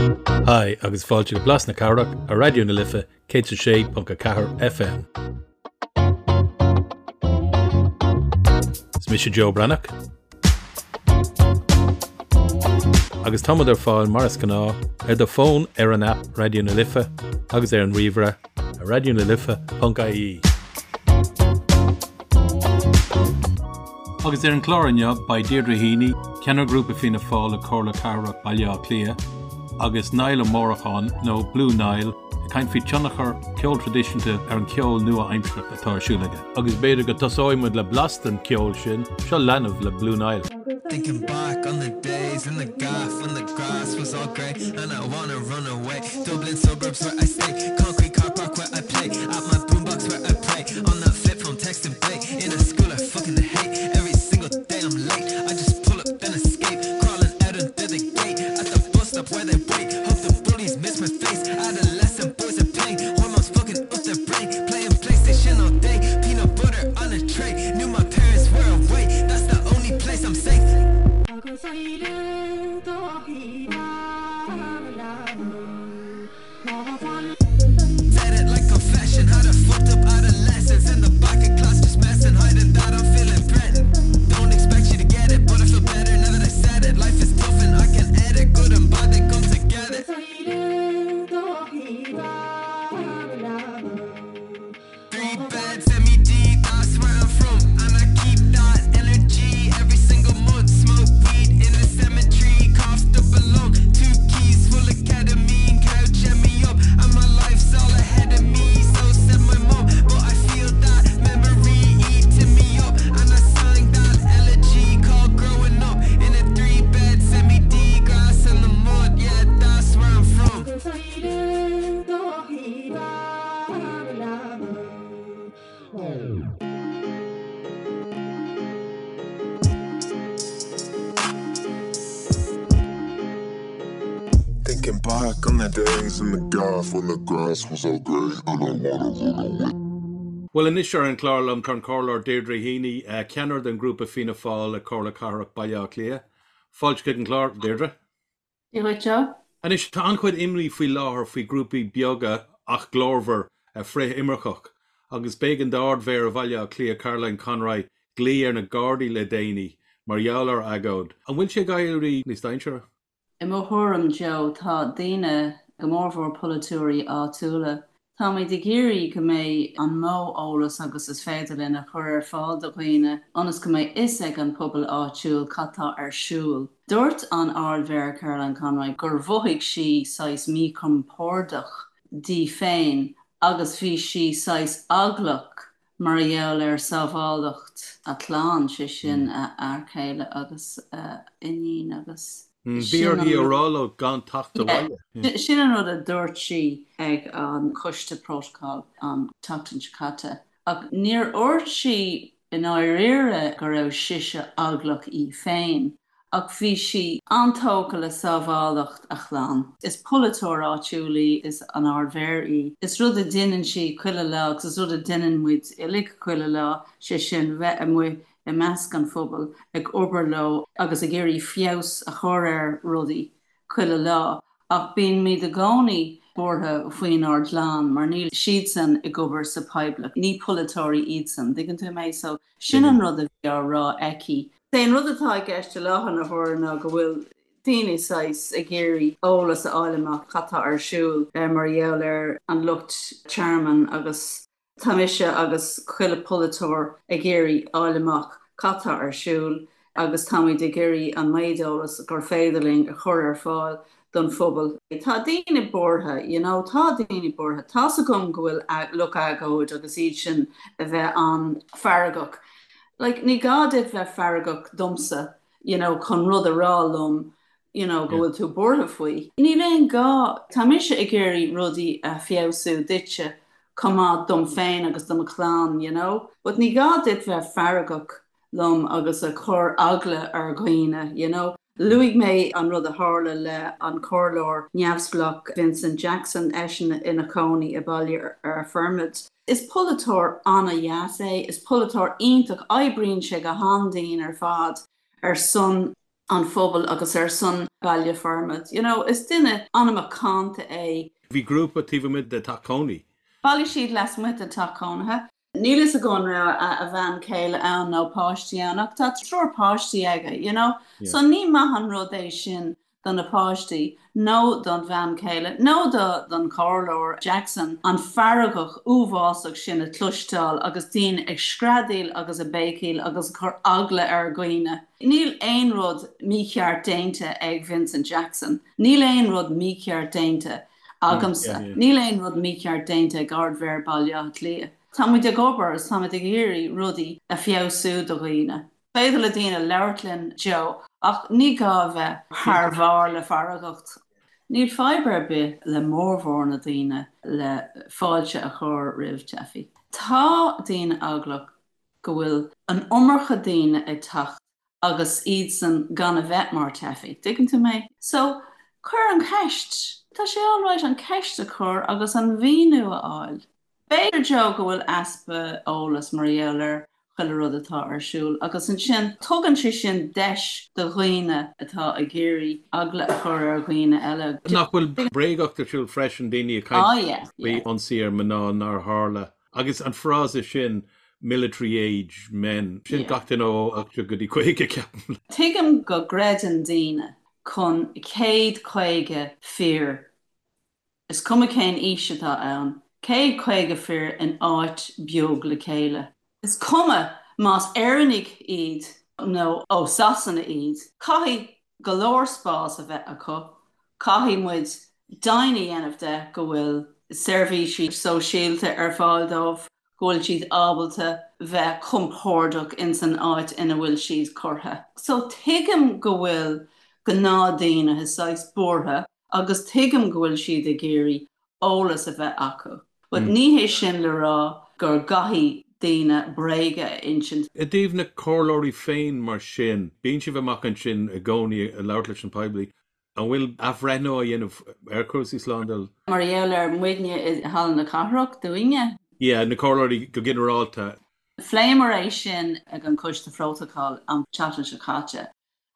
Hi agus fáilte go Blas na Cathrach ar Raidió na Life 106.4 FM. Is mise Joe Breathnach. Agus táimid ar fáil mar is gnáth ar do fón ar an aip Raidió na Life agus ar an ríomhaire ar raidionalife.ie. Agus ar an chlár inniu beidh Deirdre Heaney, ceannaire grúpa Fianna Fáil le Comhairle Cathrach Baile Átha Cliath, agus Niall Ó Móracháin, nó Blue Niall, ag caint faoi tionchar ceol traidisiúnta ar an cheol nua-aimsearach atá ar siúl aige. Agus b'fhéidir go dtosóidh muid le blas den cheol sin, seo Leanbh le Blue Niall. Thinking back on the days in the gaff when the grass was all grey and I wanna run away Dublin suburbs where I stay Concrete car park where I play At my boombox where I pray On that flip phone texting bae In a school I fucking hate Every single day I'm late I just pull up then escape Crawling out under the gate At the bus stop where they wait Hope the bullies miss my face Adolescent boys are playing Hormones fucking up their brain Playing PlayStation all day Peanut butter on a tray Knew my parents were away That's the only place I'm safe. Agus éire do Said it like confession Had a fucked up adolescence In the back of class just messing Hiding that I'm feeling threatened Don't expect you to get it But I feel better now that I said it Life is tough and I can edit Good and bad they come together. Thinking back on the days in the gaff when the grass was all grey and I wanna run away. Bhuel anois ar an chlár liom tá an Comhairleoir Deirdre Heaney, ceannaire den ghrúpa Fianna Fáil le Comhairle Cathrach Baile Átha Cliath. Fáilte chuig an chlár, Deirdre. Dia dhuit, Joe. Anois, tá an-chuid imní faoi láthair faoi ghrúpaí beaga ach glórmhar frith-imirceach agus b'éigean d'Ard-Mhéara Bhaile Átha Cliath, Caroline Conroy, glaoch ar na Gardaí le déanaí mar gheall ar agóid. An bhfuil sé ag éirí níos dainséaraí? I mo thuairim, Joe, tá daoine, go mórmhór polaiteoirí áitiúla, Táimid ag iarraidh go mbeidh an mó eolas agus is féidir linn a chur ar fáil do dhaoine ionas go mbeidh fhios ag an pobal áitiúil cad tá ar siúl. Dúirt an Ard-Mhéara Caroline Conroy gur mhothaigh sí saghas míchompordach di féin agus bhí sí saghas eaglach mar gheall ar sábhálacht a clann, sé sin a fhear céile agus a iníon agus Bhí sin an uirthi a rud. rá leo gan teacht abhaile. Sin an rud a dúirt sí ag an choiste prótacail an tseachtain seo caite. Ach níor dhúirt sí i ndáiríre go raibh sise eaglach í féin. Ach bhí sí an-tógtha le sábhálacht a chlann. Is polaiteoir áitiúil í, is an Ard-Mhéara í. Is rud a deineann sí chuile lá agus is rud a deineann muid uilig chuile lá, sé sin bheith amuigh i measc an phobail, ag obair leo agus ag iarraidh feabhas a chur ar rudaí chuile lá. Ach bíonn muid i gcónaí buartha faoinár gclann mar níl siadsan ag obair sa poiblí, ní polaiteoirí iadsan, dtuigeann tú mé? So sin an rud a bhí á rá aici. Sé an rud atá i gceist i láthair na huaire ná go bhfuil daoine saghas ag iarraidh eolas a fháil amach cad tá ar siúl mar gheall ar an lucht tearmainn agus tá mise agus chuile polaiteoir ag iarraidh fháil amach cad tá ar siúl agus táimid ag iarraidh an méid eolas gur féidir linn a chur ar fáil don phobal. Tá daoine buartha, you know, tá daoine buartha. Tá's agam go bhfuil lucht agóid agus iad sin a bheith an-fheargach. Like, ní gá duit bheith feargach domsa, you know, chun rud a rá liom, you know, go bhfuil tú buartha faoi. Níl aon gá, tá mise ag iarraidh rudaí a feabhsú duitse chomh maith dom féin agus do mo chlann, you know. But ní gá duit bheith feargach liom agus a chur eagla ar dhaoine, you know. Luaigh mé an rud a tharla le an comhairleoir neamhspleách Vincent Jackson, eisean ina chónaí i Baile Formaid. Is polaiteoir an-dheas é, is polaiteoir iontach, oibríonn sé go han-dian ar fad ar son. an phobail agus ar son Baile Formaid. You know, is duine an-mhacánta é. Bhí grúpa taobh amuigh de teach cónaí. Bhailigh siad lasmuigh den teach cónaithe. Níl fhios agam an raibh a bhean chéile ann nó páistí ann ach tá triúr páistí aige, you know. So ní maith an rud é sin do na páistí nó don bhean chéile nó do don chomhairleoir Jackson an feargacht uafásach sin a chloisteáil agus daoine ag screadaíl agus ag béicíl agus ag cur eagla ar dhaoine. Níl aon rud mícheart déanta ag Vincent Jackson. Níl aon rud mícheart déanta agamsa. Níl aon rud mícheart déanta ag Ard-Mhéara Bhaile Átha Cliath. Tá muid ag obair agus táimid ag iarraidh rudaí a feabhsú do dhaoine. Féidir le daoine labhairt linn, Joe, ach ní gá a bheith thar bharr le feargacht. Níl fadhb ar bith le mórmhór na daoine le fáilte a chur roimh Taffy. Tá daoine eaglach go bhfuil an iomarca daoine ag teacht agus iadsan gan a bheith mar Taffy. Tuigeann tú mé? So, cuir an cheist. Tá sé alright an ceist a chur agus an mhíniú a fháil. B'fhéidir, Joe, go bhfuil easpa eolas mar gheall ar chuile rud atá ar siúl agus ansin tugann sé sin deis do dhaoine atá ag iarraidh eagla a chur ar dhaoine eile. Nach bhfuil bréagacht ar siúl freisin, daoine ag caint faoi ionsaí ar mná nár tharla agus an frása sin military age men, sin gach duine ó 18 go dtí 50, ceapaim. Tuigim go gcreideann daoine chun 150 fir Is cuma cén aois atá ann, 150 fir in áit beag le chéile. Is cuma más Éireannaigh iad nó ó Sasana iad, caithfidh go leor spás a bheith acu, caithfidh muid deimhin a dhéanamh de go bhfuil seirbhísí sóisialta ar fáil dóibh, go bhfuil siad ábalta bheith compordach ins an áit ina bhfuil siad curtha. So tuigim go bhfuil gnáthdaoine saghas buartha agus tuigim go bhfuil siad ag iarraidh eolas a bheith acu but ní hé sin le rá gur gcaithfidh daoine bréaga a insint. I dtaobh na comhairleoirí féin mar sin, bíonn sibh amach ansin i gcónaí ag labhairt leis an poiblí. An bhfuil athbhreithniú á dhéanamh ar chúrsaí slándála? Mar gheall ar muidne i Halla na Cathrach, dúinne? Yeah, na comhairleoirí go ginearálta. Phléamar é sin ag an Coiste Phrótacail an tseachtain seo caite.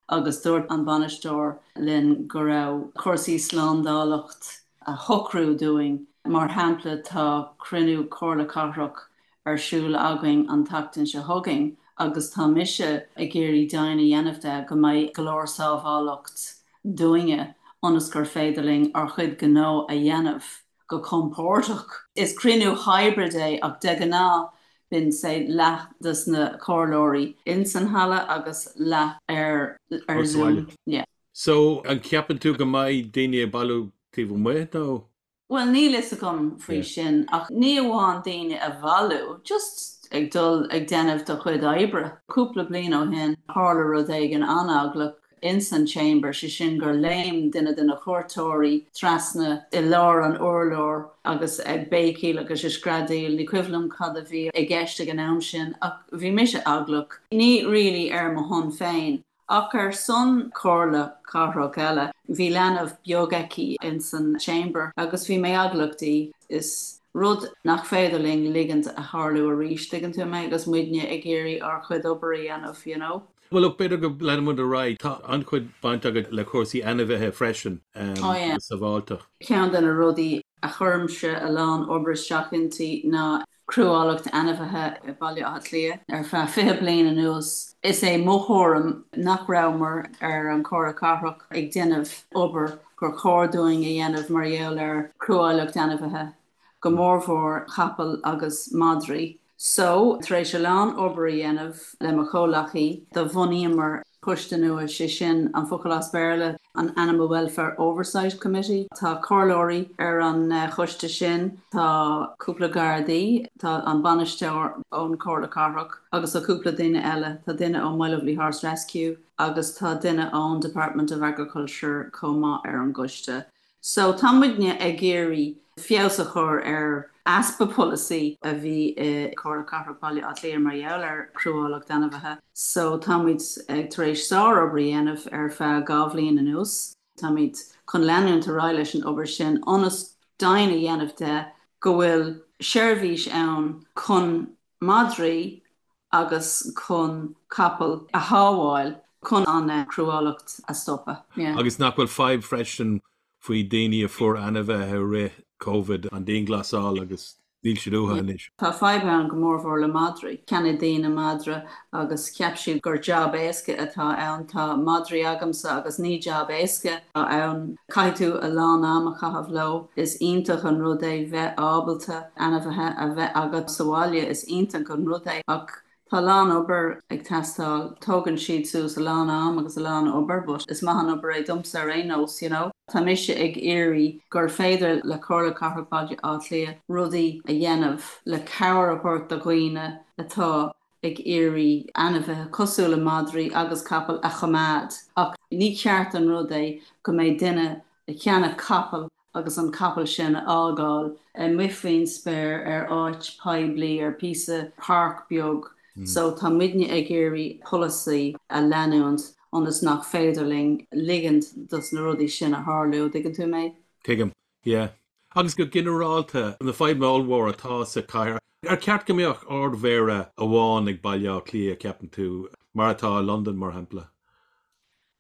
agus dúirt an bainisteoir linn go raibh cúrsaí slándálacht a shocrú dúinn. Mar shampla, tá cruinniú Comhairle Cathrach ar siúl againn an tseachtain seo chugainn agus tá mise ag iarraidh deimhin a dhéanamh de go mbeidh go leor sábhálacht dúinne ionas gur féidir linn ár chuid gnó a dhéanamh. go compordach. Is cruinniú hybrid é ach de ghnáth bíonn say leath des na comhairleoirí ins an halla agus leath ar ar Zoom. Yeah. So an ceapann tú go mbeidh daoine ag bailiú taobh amuigh nó? Bhuel níl fhios agam faoi sin ach ní amháin daoine a bhailiú, just ag dul ag déanamh do chuid oibre. Cúpla bliain ó shin tharla rud éigin an-eaglach ins an chamber, sé sin gur léim duine de na cuairteoirí trasna i lár an urláir agus ag béicíl agus ag screadaíl. Ní cuimhin liom cad a bhí i gceist ag an am sin ach bhí mise eaglach, ní really ar mo shon féin ach ar son comhairle cathrach eile. Bhí leanbh beag aici ins an chamber agus bhí mé eaglach di. Is rud nach féidir linn ligint a tharlú arís, tuigeann tú mé, agus muidne ag iarraidh ár chuid obair a dhéanamh, you know. Bhuel, look, b'fhéidir go leanfaidh muid ar aghaidh. Tá an-chuid baint agat le cúrsaí ainmhithe freisin, agus sábháilteacht. Ceann de na rudaí a chuirimse a lán obair isteach inti ná cruálacht ainmhithe i Baile Átha Cliath. Ar feadh 20 bliain anuas, is é mo thuairim nach rabhamar ar an Chomhairle Cathrach ag déanamh obair gur chóir dúinn a dhéanamh mar gheall ar chruálacht ainmhithe, go mórmhór capaill agus madraí. So, tar éis a lán obair a dhéanamh le mo chomhleacaí, do bhunaíomar coiste nua, sé sin an focal as Béarla, an Animal Welfare Oversight Committee. Tá comhairleoirí ar an choiste sin, tá cúpla Gardaí, tá an bainisteoir ón Chomhairle Cathrach agus tá cúpla duine eile, tá duine ó My Lovely Horse Rescue agus tá duine ón Department of Agriculture chomh maith ar an gcoiste. So tá muidne ag iarraidh feabhas a chur ar easpa polasaí a bhí i Comhairle Cathrach Bhaile Átha Cliath mar gheall ar chruálacht ainmhithe. So táimid ag tar éis sár-obair a dhéanamh ar feadh 2 bhliain anuas. Táimid chun leanúint ar aghaidh leis an obair sin ionas deimhin a dhéanamh de go bhfuil seirbhís ann chun madraí agus chun capaill a shábháil. Chun an cruálacht a stopadh. Yeah. Agus nach bhfuil fadhb freisin faoi daoine a fuair ainmhithe i rith Covid, an dianghlasáil agus níl siad uathu anois. Tá fadhb ann go mórmhór le madraí. Cheannaigh daoine madra agus cheap siad gur jab éasca atá ann. Tá madraí agamsa agus ní jab éasca atá ann. Caithfidh tú a lán am a chaitheamh leo. Is iontach an rud é bheith ábalta ainmhithe a bheith agat sa bhaile. Is iontach an rud é ach Tá a lán obair ag teastáil. Tógann siad suas a lán am agus a lán obair but is maith an obair é domsa ar aon nós, you know. Tá mise ag iarraidh gur féidir le Comhairle Cathrach Bhaile Átha Cliath rudaí a dhéanamh le cabhair a thabhairt do dhaoine atá ag iarraidh ainmhithe cosúil le madraí agus capaill a choimeád. Ach ní ceart an rud é go mbeidh duine ag ceannach capall agus an capall sin a fhágáil amuigh faoin spéir ar áit poiblí, ar píosa páirc beag. So tá muidne ag iarraidh polasaí a leanúint ionas nach féidir linn ligint dos na rudaí sin a tharlú, dtuigeann tú mé? Tuigim, yeah. Agus go ginearálta, na fadhbanna ollmhóra atá sa chathair, ar cheart go mbeadh ardmhéara amháin ag Baile Átha Cliath, ceapann tú, mar atá i Londain, mar shampla?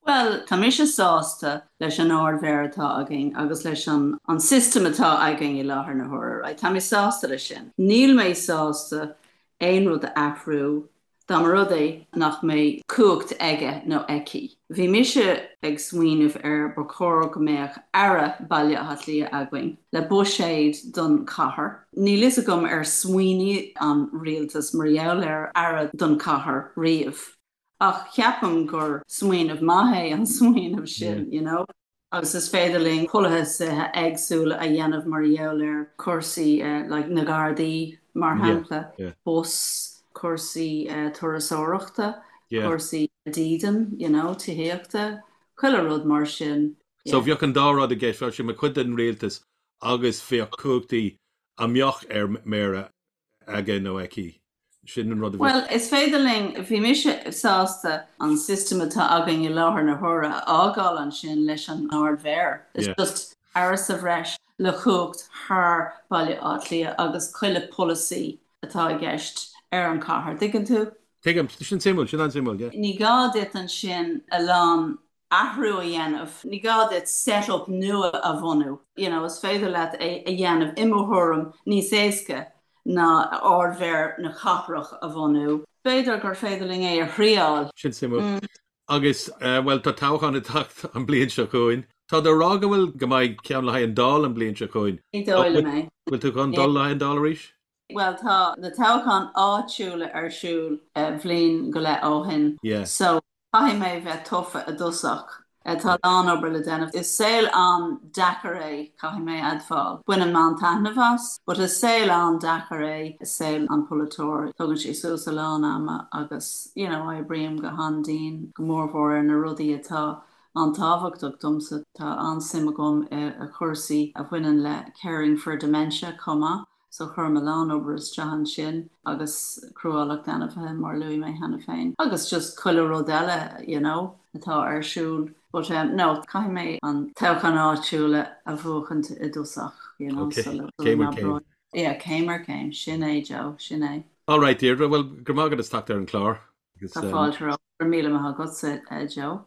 Bhuel, tá mise sásta leis an Ard-Mhéara atá againn agus leis an an system atá againn i láthair na huaire, right? Tá mé sásta leis sin. Níl mé sásta aon rud a athrú dá mba rud é nach mbeidh cumhacht aige nó aici. Bhí mise ag smaoineamh ar ba chóir go mbeadh Aire Baile Átha Cliath againn le buiséad don chathair. Níl fhios agam ar smaoinigh an rialtas mar gheall ar Aire don chathair riamh. Ach ceapaim gur smaoineamh maith é an smaoineamh sin, you know. Agus is féidir linn polasaithe éagsúla a dhéanamh mar gheall ar chúrsaí like na Gardaí, mar shampla, bus, cúrsaí turasóireachta, cúrsaí dídean, you know, tithíochta, chuile rud mar sin. So bheadh an dá rud i gceist, bheadh sé mar chuid den rialtas agus bheadh cumhachtaí a mbeadh ar méara aige nó aici. Sin an rud a bhí. Bhuel, is féidir linn, bhí mise sásta an system atá againn i láthair na huaire a fhágáil ansin leis an Ard-Mhéara. It's just aire sa bhreis le cumhacht thar Baile Átha Cliath agus chuile polasaí atá i gceist ar an chathair. Dtuigeann tú? Tuigim. Sin suimiúil, sin an-suimiúil, yeah. Ní gá duit ansin a lán athrú a dhéanamh, ní gá duit set up nua a bhunú, you know, is féidir leat é a dhéanamh, i mo thuairim, níos éasca ná Ard-Mhéara na cathrach a bhunú. B'fhéidir gur féidir linn é a thriáil. Sin suimiúil. Agus, bhuel, tá toghchán ag teacht an bhliain seo chugainn. Tá tú ag rá go bhfuil, go mbeidh ceann le haghaidh an Dáil an bhliain seo chugainn. Ní dóigh liom é. Bhfuil tú chun dul le haghaidh an Dáil arís? Bhuel, tá na toghcháin áitiúla ar siúl bhliain go leith ó shin. So, Caithfidh mé bheith tofa i dtosach. Tá a lán obair le déanamh. Is saol an-deacair é, caithfidh mé a admháil. Bainim an-taitneamh as, but is saol an-deacair é saol an polaiteoir. Tógann sé suas a lán ama agus, you know, oibrím go han-dian, go mórmhór ar na rudaí atá an-tábhachtach domsa. Tá an-suim agam i chúrsaí a bhaineann le caring for dementia chomh maith. So cuirim a lán obair isteach ansin agus cruálacht ainmhithe mar a luaigh mé cheana féin agus just chuile rud eile you know atá ar siúl. But um no, caithfidh mé an toghchán áitiúil a bhuachaint i dtosach you know Ok, sula céim ar chéim. Yeah, céim ar chéim, sin é Joe, sin é. All right Deirdre, bhuel go raibh maith agat as teacht ar an chlár agus Tá fáilte romhat. Go raibh míle maith agatsa Joe.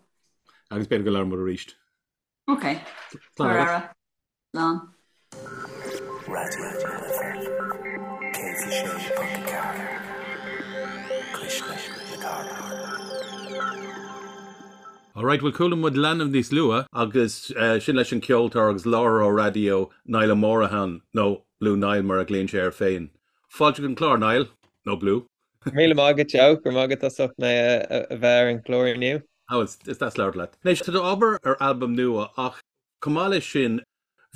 Agus b'fhéidir go labhróidh muid arís. Ok. Slán agat. Slán. Raidió na Life 106.4 Cuisle na Cathrach. Alright, bhuel chuala muid leanbh níos luaithe agus sin leis an ceoltóir agus láithreoir raidió Niall Ó Móracháin, nó Blue Niall mar a ghlaonn sé air féin. Fáilte chuig an chlár, Niall, nó Blue. Míle maith agat Joe, go raibh maith agat as ucht mé a bheith ar an gclár inniu. Ó, is deas labhairt leat. Anois, tá tú ag obair ar albam nua ach chomh maith leis sin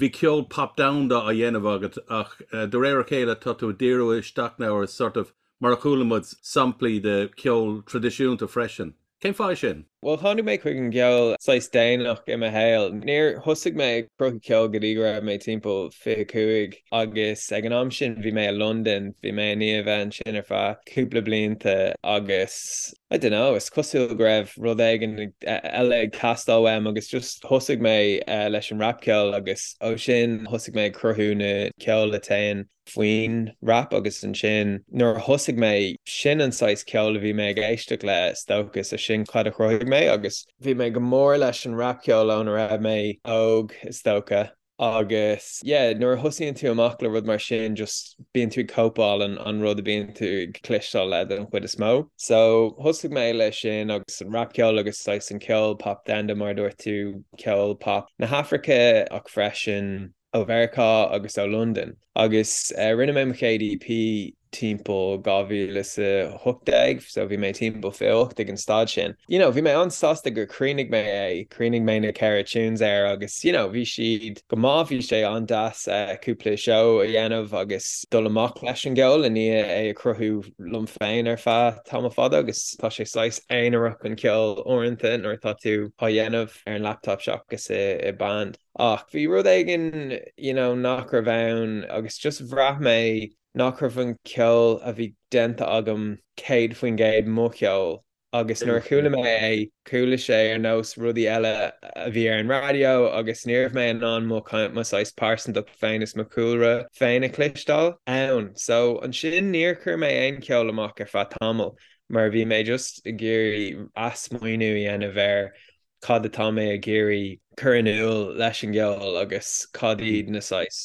bhí ceol pop domhanda á dhéanamh agat ach de réir a chéile tá tú ag díriú isteach now ar sort of, mar a chuala muid, samplaí de cheol traidisiúnta freisin. Cén fáth é sin? Bhuel, tháinig mé chuig an gceol saghas déanach i mo shaol. Níor thosaigh mé ag cruthú ceoil go dtí go raibh mé timpeall 25 agus ag an am sin bhí mé i Londain, bhí mé i ndiaidh a bheith ansin ar feadh cúpla blianta agus I don't know, is cosúil go raibh rud éigin eile ag teastáil uaim agus just thosaigh mé leis an rapcheol agus ó sin thosaigh mé ag cruthú na ceoil a théann faoin rap agus ansin nuair a thosaigh mé, sin an saghas ceoil a bhí mé ag éisteacht le is dócha, so sin cad a chruthaigh mé. mé agus bhí mé go mór leis an rapcheol óna raibh mé óg is dócha. Agus yeah, nuair a thosaíonn tú amach le rud mar sin just bíonn tú ag cóipeáil an an rud a bíonn tú ag cloisteáil le den chuid is mó. So thosaigh mé le sin agus an rapcheol agus saghas an ceol pop domhanda mar a dúirt tú, ceol pop na hAfraice ach freisin ó Mheiriceá agus ó Londain. Agus rinne mé mo chéad EP timpeall 2018, so bhí mé timpeall 28 ag an staid sin. You know, bhí mé an-sásta gur chríochnaigh mé é, chríochnaigh mé na ceithre tunes air agus, you know, bhí siad go maith, bhí sé an-deas cúpla seó a dhéanamh agus dul amach leis an gceol i ndiaidh é a chruthú liom féin ar feadh tamall fada agus tá sé saghas aonarach an ceol uaireanta nuair atá tú á dhéanamh ar an laptop seachas i band. Ach bhí rud éigin, you know, nach raibh ann agus just bhraith mé nach raibh an ceol a bhí déanta agam 100% mo cheol agus nuair a chuala mé é, chuala sé ar nós rudaí eile a bhí ar an raidió agus ní raibh mé in ann mo mo saghas pearsantacht féin is mo chúlra féin a chloisteáil ann. So ansin níor chuir mé aon cheol amach ar feadh tamaill mar bhí mé just ag iarraidh athsmaoineamh a dhéanamh ar cad atá mé ag iarraidh cur in iúl leis an gceol agus cad iad na saghas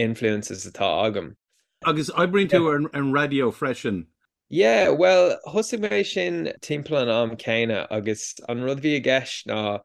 influences atá agam. Agus oibríonn tú ar an raidió freisin? Yeah, bhuel, thosaigh mé sin timpeall an am céanna agus an rud a bhí i gceist ná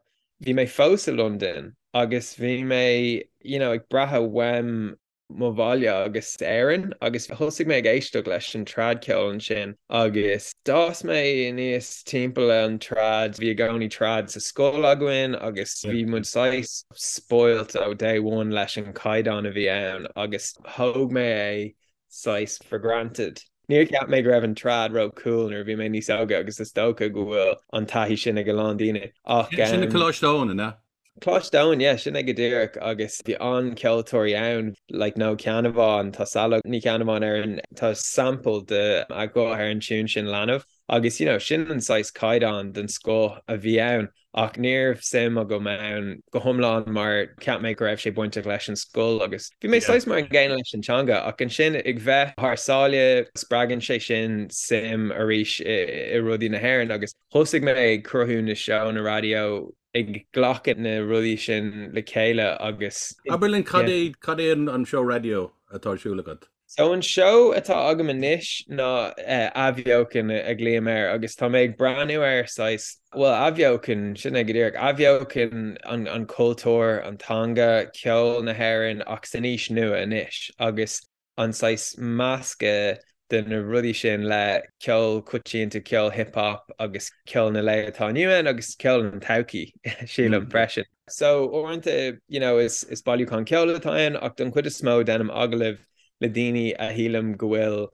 bhí mé fós i Londain agus bhí mé, you know, ag brath uaim mo bhaile agus Éirinn agus thosaigh mé ag éisteacht leis an trad ceol ansin agus d'fhás mé aníos timpeall an trad, bhí i gcónaí trad sa scoil againn agus bhí muid saghas spoilt ó day one leis an caighdeán a bhí ann agus thóg mé é saghas for granted. Níor cheap mé go raibh an trad ró cool nuair a bhí mé níos óige agus is dócha go bhfuil an taithí sin ag a lán daoine ach. Sin ag Coláiste Eoin, an ea? Coláiste Eoin, yeah, sin é go díreach agus bhí an-cheoltóirí ann like Noel Ceannabháin, tá Saileog Ní Cheannabháin ar an, tá sample de a guth ar an tiún sin Leanbh agus you know sin an saghas caighdeán den scoth a bhí ann ach ní raibh suim agam ann go hiomlán mar cheap mé go raibh sé bainteach leis an scoil agus bhí mé saghas mar an gcéanna leis an teanga ach ansin ag bheith thar sáile spreagann sé sin suim arís i rudaí na hÉireann agus thosaigh mé ag cruthú na seónna raidió ag glacadh na rudaí sin le chéile agus. Abair linn cad é cad é an seó raidió atá ar siúl agat? So an seó atá agam anois ná Athbheochan a ghlaoim air agus tá mé ag breathnú ar saghas, bhuel athbheochan, sin é go díreach, athbheochan an an cultúr, an teanga, ceol na hÉireann ach san aois nua anois agus an saghas meascadh de na rudaí sin le ceol coitianta, ceol hip hop agus ceol na lae atá inniu ann agus ceol an todhchaí, sílim, freisin. So, uaireanta, you know, is is bailiúchán ceoil atá ann ach don chuid is mó déanaim agallaimh le daoine a shílim go bhfuil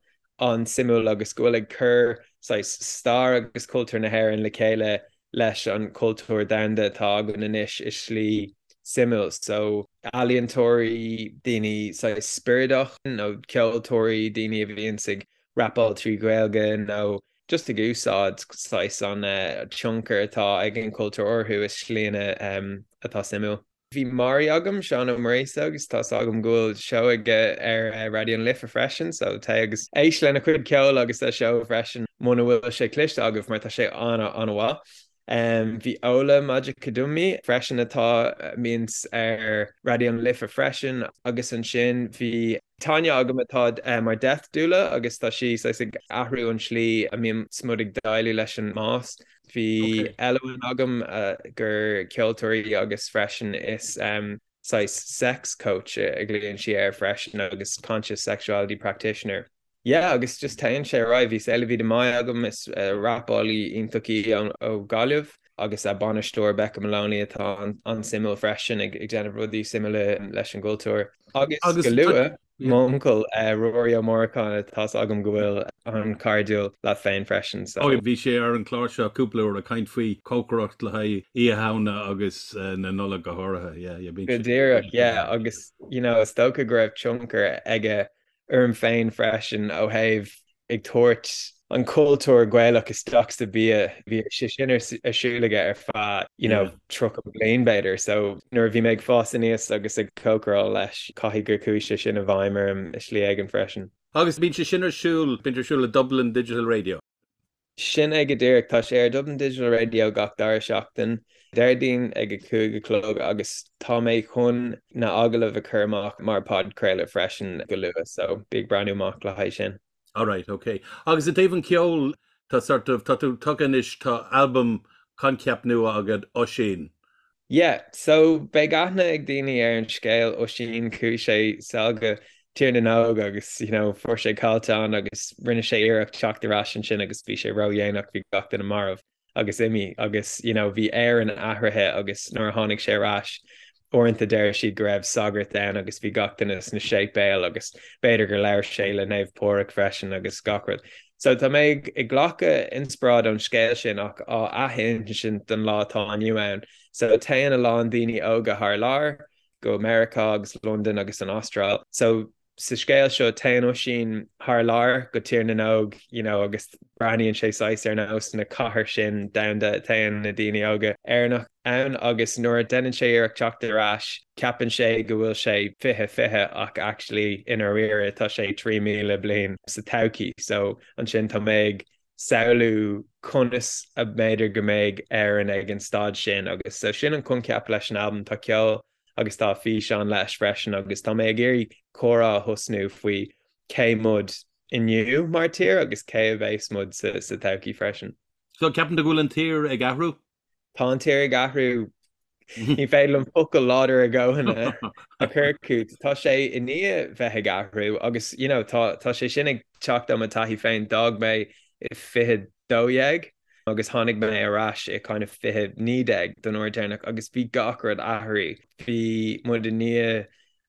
an-suimiúil agus go bhfuil ag cur saghas stair agus cultúr na hÉireann le chéile leis an chultúr domhanda atá againn anois i slí suimiúil. So, ealaíontóirí, daoine saghas spioradach nó ceoltóirí, daoine a bhíonns ag rapáil trí Ghaeilge nó just ag úsáid saghas an tionchar atá ag an chultúr orthu i slíanna atá suimiúil. Bhí Maury agam, Seán Ó Muiríosa, agus tá's agam go bhfuil seó aige ar Raidió na Life freisin, so téigh agus éist lena chuid ceoil agus a seó freisin muna bhfuil sé cloiste agaibh mar tá sé an-an-mhaith. Bhí Ola Majekodunmi freisin atá, a bhíonns ar Raidió na Life freisin agus ansin bhí Tanya agam atá mar death doula agus tá sí saghas ag athrú an slí a mbíonns muid ag déileáil leis an mbás. Bhí Elowen agam gur ceoltóir í agus freisin is saghas sex coach a ghlaonn sí air freisin agus conscious sexuality practitioner. Yeah agus just téann sé ar aghaidh. Bhí C'est la vie de Mai agam, is rapálaí iontach í ó Ghaillimh agus a bainisteoir Becca Maloney atá an-suimiúil freisin ag déanamh rudaí suimiúla leis an gcultúr. Agus go luath, M'uncail, Ruairí Ó Mórdhacháin, tá's agam go bhfuil an-chairdiúil leat féin freisin, so. Ó, bhí sé ar an chlár seo cúpla uair ag caint faoi cócaireacht le haghaidh Oíche Shamhna agus na Nollag go háirithe, yeah, yeah, bíonn sé. Go díreach, yeah, agus you know, is dócha go raibh tionchar aige orm féin freisin ó thaobh ag tabhairt an cultúr Gaelach isteach sa bia, bhí sé sin ar siúl aige ar feadh you know 30 bliain b'fhéidir, so nuair a bhí mé ag fás aníos agus ag cócaráil leis, caithfidh gur chuaigh sé sin i bhfeidhm orm i slí éigin freisin. Agus bíonn sé sin ar siúl, bíonn sé ar siúl i Dublin Digital Radio. Sin é go díreach. Tá sé ar Dublin Digital Radio gach dara seachtain, Déardaoin ag a 5 a chlog agus tá mé chun na agallaimh a chur amach mar podchraoladh freisin go luath so bí ag breathnú amach le haghaidh sin. Alright, ok. Agus i dtaobh an cheoil, tá sort of, tá tú tugtha anois, tá albam coincheap nua agat, Oisín. Yeah, so beidh aithne ag daoine ar an scéal Oisín, chuaigh sé sall go Tír na nÓg agus you know fuair sé caillte ann agus rinne sé iarracht teacht ar ais ansin agus bhí sé ródhéanach, bhí gach duine marbh agus imithe agus you know bhí Éirinn athraithe agus nuair a tháinig sé ar ais uaireanta deir siad go raibh sagart ann agus bhí gach duine sna séipéil agus b'fhéidir gur labhair sé le Naomh Pádraig freisin agus gach rud. So tá mé ag glacadh inspioráid ón scéal sin ach á athinsint don lá atá inniu ann. So téann a lán daoine óga thar lear, go Meiriceá agus Londain agus an Astráil. So sa scéal seo téann Oisín thar lear go Tír na nÓg you know agus breathnaíonn sé saghas ar nós na cathair sin domhanda a téann na daoine óga Éireannach ann agus nuair a déanann sé iarracht teacht ar ais ceapann sé go bhfuil sé 20 20 ach actually i ndáiríre tá sé 3,000 bliain sa todhchaí so ansin tá mé ag samhlú conas a b'fhéidir go mbeidh Éirinn ag an staid sin agus so sin an coincheap leis an albam tá ceol agus tá físeán leis freisin agus tá mé ag iarraidh comhrá a thosnú faoi cé muid inniu mar tír agus cé a bheas muid sa todhchaí freisin. So ceapann tú go bhfuil an tír ag athrú? Tá an tír ag athrú. Ní féidir liom focal láidir a dhóthain a chur chugat. Tá sé i ndiaidh bheith ag athrú agus you know tá tá sé sin ag teacht ó mo taithí féin. D'fhág mé i 2012 agus tháinig mé ar ais i kind of 2019 don uair deireanach agus bhí gach rud athraithe. Bhí muid i ndiaidh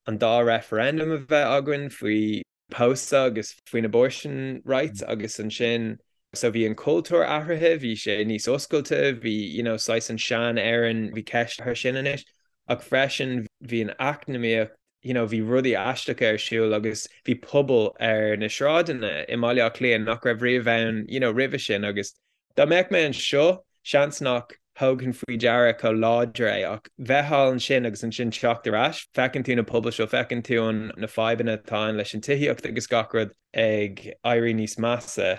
an dá referendum a bheith againn faoi pósadh agus faoin abortion rights agus ansin so bhí an cultúr athraithe, bhí sé níos oscailte, bhí you know saghas an sean-Éirinn, bhí ceist air sin anois ach freisin bhí an eacnamaíocht you know bhí rudaí aisteacha ar siúl agus bhí pobal ar na sráideanna i mBaile Átha Cliath nach raibh riamh ann you know roimhe sin agus dá mbeadh mé anseo seans nach thógfainn faoi deara chomh láidir é ach bheith thall ansin agus ansin teacht ar ais feiceann tú na pobail seo feiceann tú an na fadhbanna atá ann leis an tithíocht agus gach rud ag éirí níos measa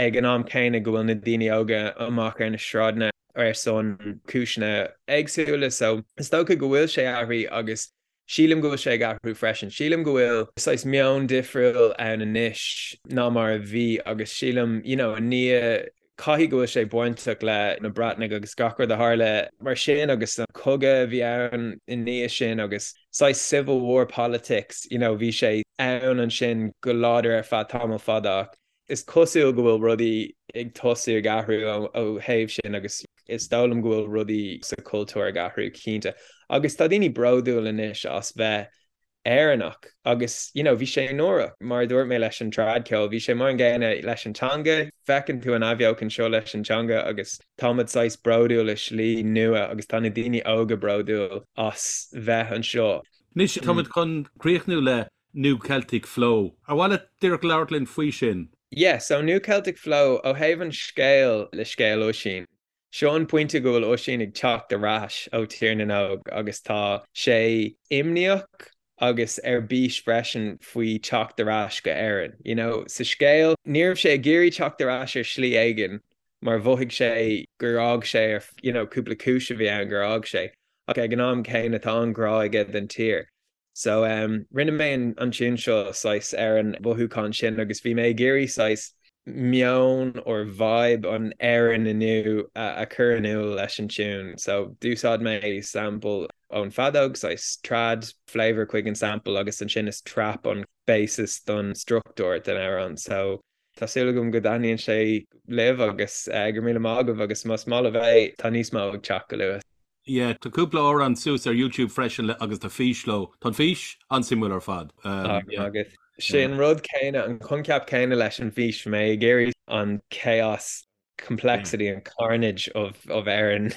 ag an am céanna go bhfuil na daoine óga amach ar na sráideanna ar son cúiseanna éagsúla. So is dócha go bhfuil sé athraithe agus sílim go bhfuil sé ag athrú freisin. Sílim go bhfuil saghas meon difriúil ann anois ná mar a bhí agus sílim, you know, i ndiaidh caithfidh go bhfuil sé bainteach le na Breatnaigh agus gach rud a tharla mar sin agus an cogadh a bhí ann i ndiaidh sin agus saghas civil war politics, you know, bhí sé ann ansin go láidir ar feadh tamall fada ach is cosúil go bhfuil rudaí ag tosú ag athrú ó thaobh sin agus is dóigh liom go bhfuil rudaí sa chultúr ag athrú cinnte. Agus tá daoine bródúil anois as bheith Éireannach agus you know bhí sé náireach mar a dúirt mé leis an trad ceol, bhí sé mar an gcéanna leis an teanga, feiceann tú an athbheochan seo leis an teanga agus táimid saghas bródúil i slí nua agus tá na daoine óga bródúil as bheith anseo. Anois táimid chun críochnú le New Celtic Flow. Ar mhaith leat díreach labhairt linn faoi sin? Yeah, so New Celtic Flow, ó thaobh an scéil le scéal Oisín, seo an pointe go bhfuil Oisín ag teacht ar ais ó Tír na nÓg agus tá sé imníoch agus ar bís freisin faoi teacht ar ais go Éirinn. You know, sa scéal, ní raibh sé ag iarraidh teacht ar ais ar shlí éigin mar mhothaigh sé gur fhág sé ar, you know, cúpla cúis a bhí ann gur fhág sé. Ach ag an am céanna tá an-ghrá aige don tír. So um rinne mé an an tune seo saghas ar an mhothúchán sin agus bhí mé ag iarraidh saghas meon or vibe an Éirinn inniu a chur in iúl leis an tune. So d'úsáid mé sample ón feadóg, saghas trad flavour chuig an sample agus ansin is trap an basis don struchtúr den amhrán. So tá súil agam go dtaitníonn sé libh agus go raibh míle maith agaibh agus más maith libh é tá níos mó ag teacht go luath. Yeah, tá cúpla amhrán suas ar YouTube freisin le agus tá fís leo. Tá an fís an-suimiúil ar fad. Um, yeah. Agus sin rud céanna, an coincheap céanna leis an bhfís, mé ag iarraidh an chaos, complexity and carnage of, of Éirinn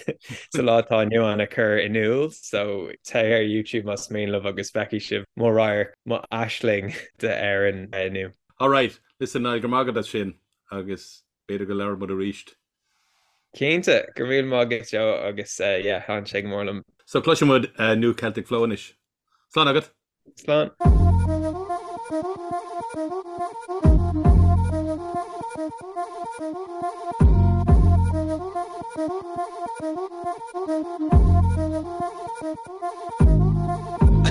sa lá atá inniu ann a chur in iúl, so téigh ar YouTube más mian libh agus feicfidh sibh mo radharc, mo aisling de Éirinn inniu. All right, listen Niall, go raibh maith agat as sin agus b'fhéidir go labhróidh muid arís. Cinnte, go raibh míle maith agat Joe agus yeah, thaitin sé go mór liom. So cloisfidh muid New Celtic Flow anois. Slán agat! Slán. I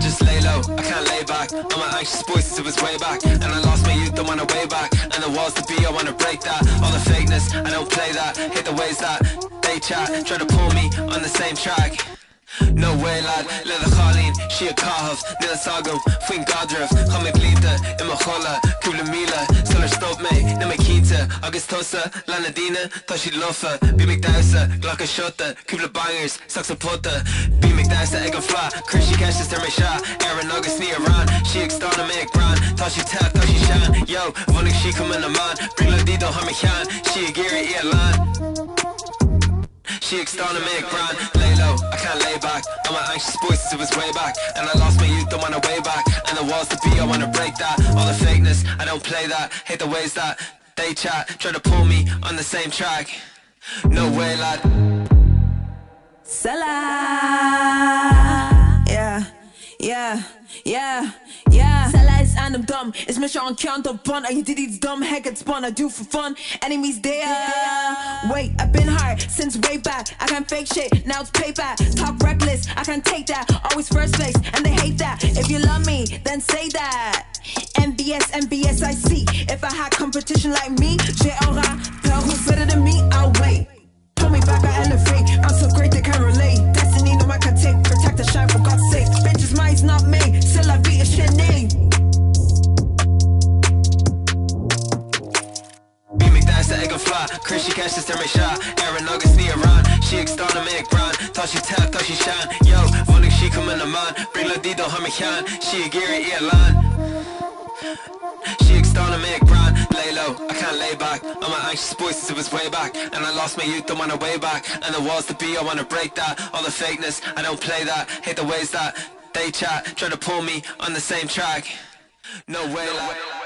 just lay low, I can't lay back I'm an anxious boy since it was way back And I lost my youth, I wanna way back And the walls to be, I wanna break that All the fakeness, I don't play that Hate the ways that they chat Try to pull me on the same track No way lad, le do chailín, sí ag caitheamh, níl fhios agam faoin gcaidreamh, Chaith mé blianta i mo chodladh, cúpla míle sular stop mé, níl mé cinnte, Agus tusa, leath na daoine, tá siad lofa, Bím ag damhsa, glacadh siota, cúpla bangers, isteach sa phota, Bím ag damhsa ag an fleadh, chuir sí ceist is deir mé sea, Éireann agus ní Iran, Sí ag stánadh mé ag brean, tá sí te, tá sí sean, Yo, bhunaigh sí cumann na mban, Brionglóidí dó thar mo cheann, Sí ag iarraidh í a lean. Sí ag stánadh mé ag brean, lay low, I can't lay back I'm an anxious boy since it was way back And I lost my youth, I wanna way back And the walls to be, I wanna break that All the fakeness, I don't play that Hate the ways that they chat Try to pull me on the same track No way lad. Selah Yeah Yeah Yeah Yeah Selah is ainm dom Is mise an ceann dá bun I did these dumb heck it's fun I do for fun Enemies there Wait I've been hard since way back I can't fake shit now it's payback Talk reckless I can't take that Always first place and they hate that If you love me then say that MBS MBS I see If I had competition like me J'ai aura peur who's better than me I'll wait Pull me back I elevate I'm so great they can't relate Destiny no man can take Protect the shine for God's sake Bitches mine's not me C'est la vie is name. Bím ag damhsa ag an fleadh, chuir sí ceist is deir mé sea, Éireann agus ní Iran, Sí ag stánadh mé ag brean, tá sí te, tá sí sean, Yo, bhunaigh sí cumann na mban, brionglóidí dó thar mo cheann, Sí ag iarraidh í a lean. Sí ag stánadh mé ag brean, lay low, I can't lay back, I'm an anxious boy since it was way back, And I lost my youth, I wanna way back, And the walls to be, I wanna break that, All the fakeness, I don't play that, Hate the ways that they chat, Try to pull me on the same track, No way lad.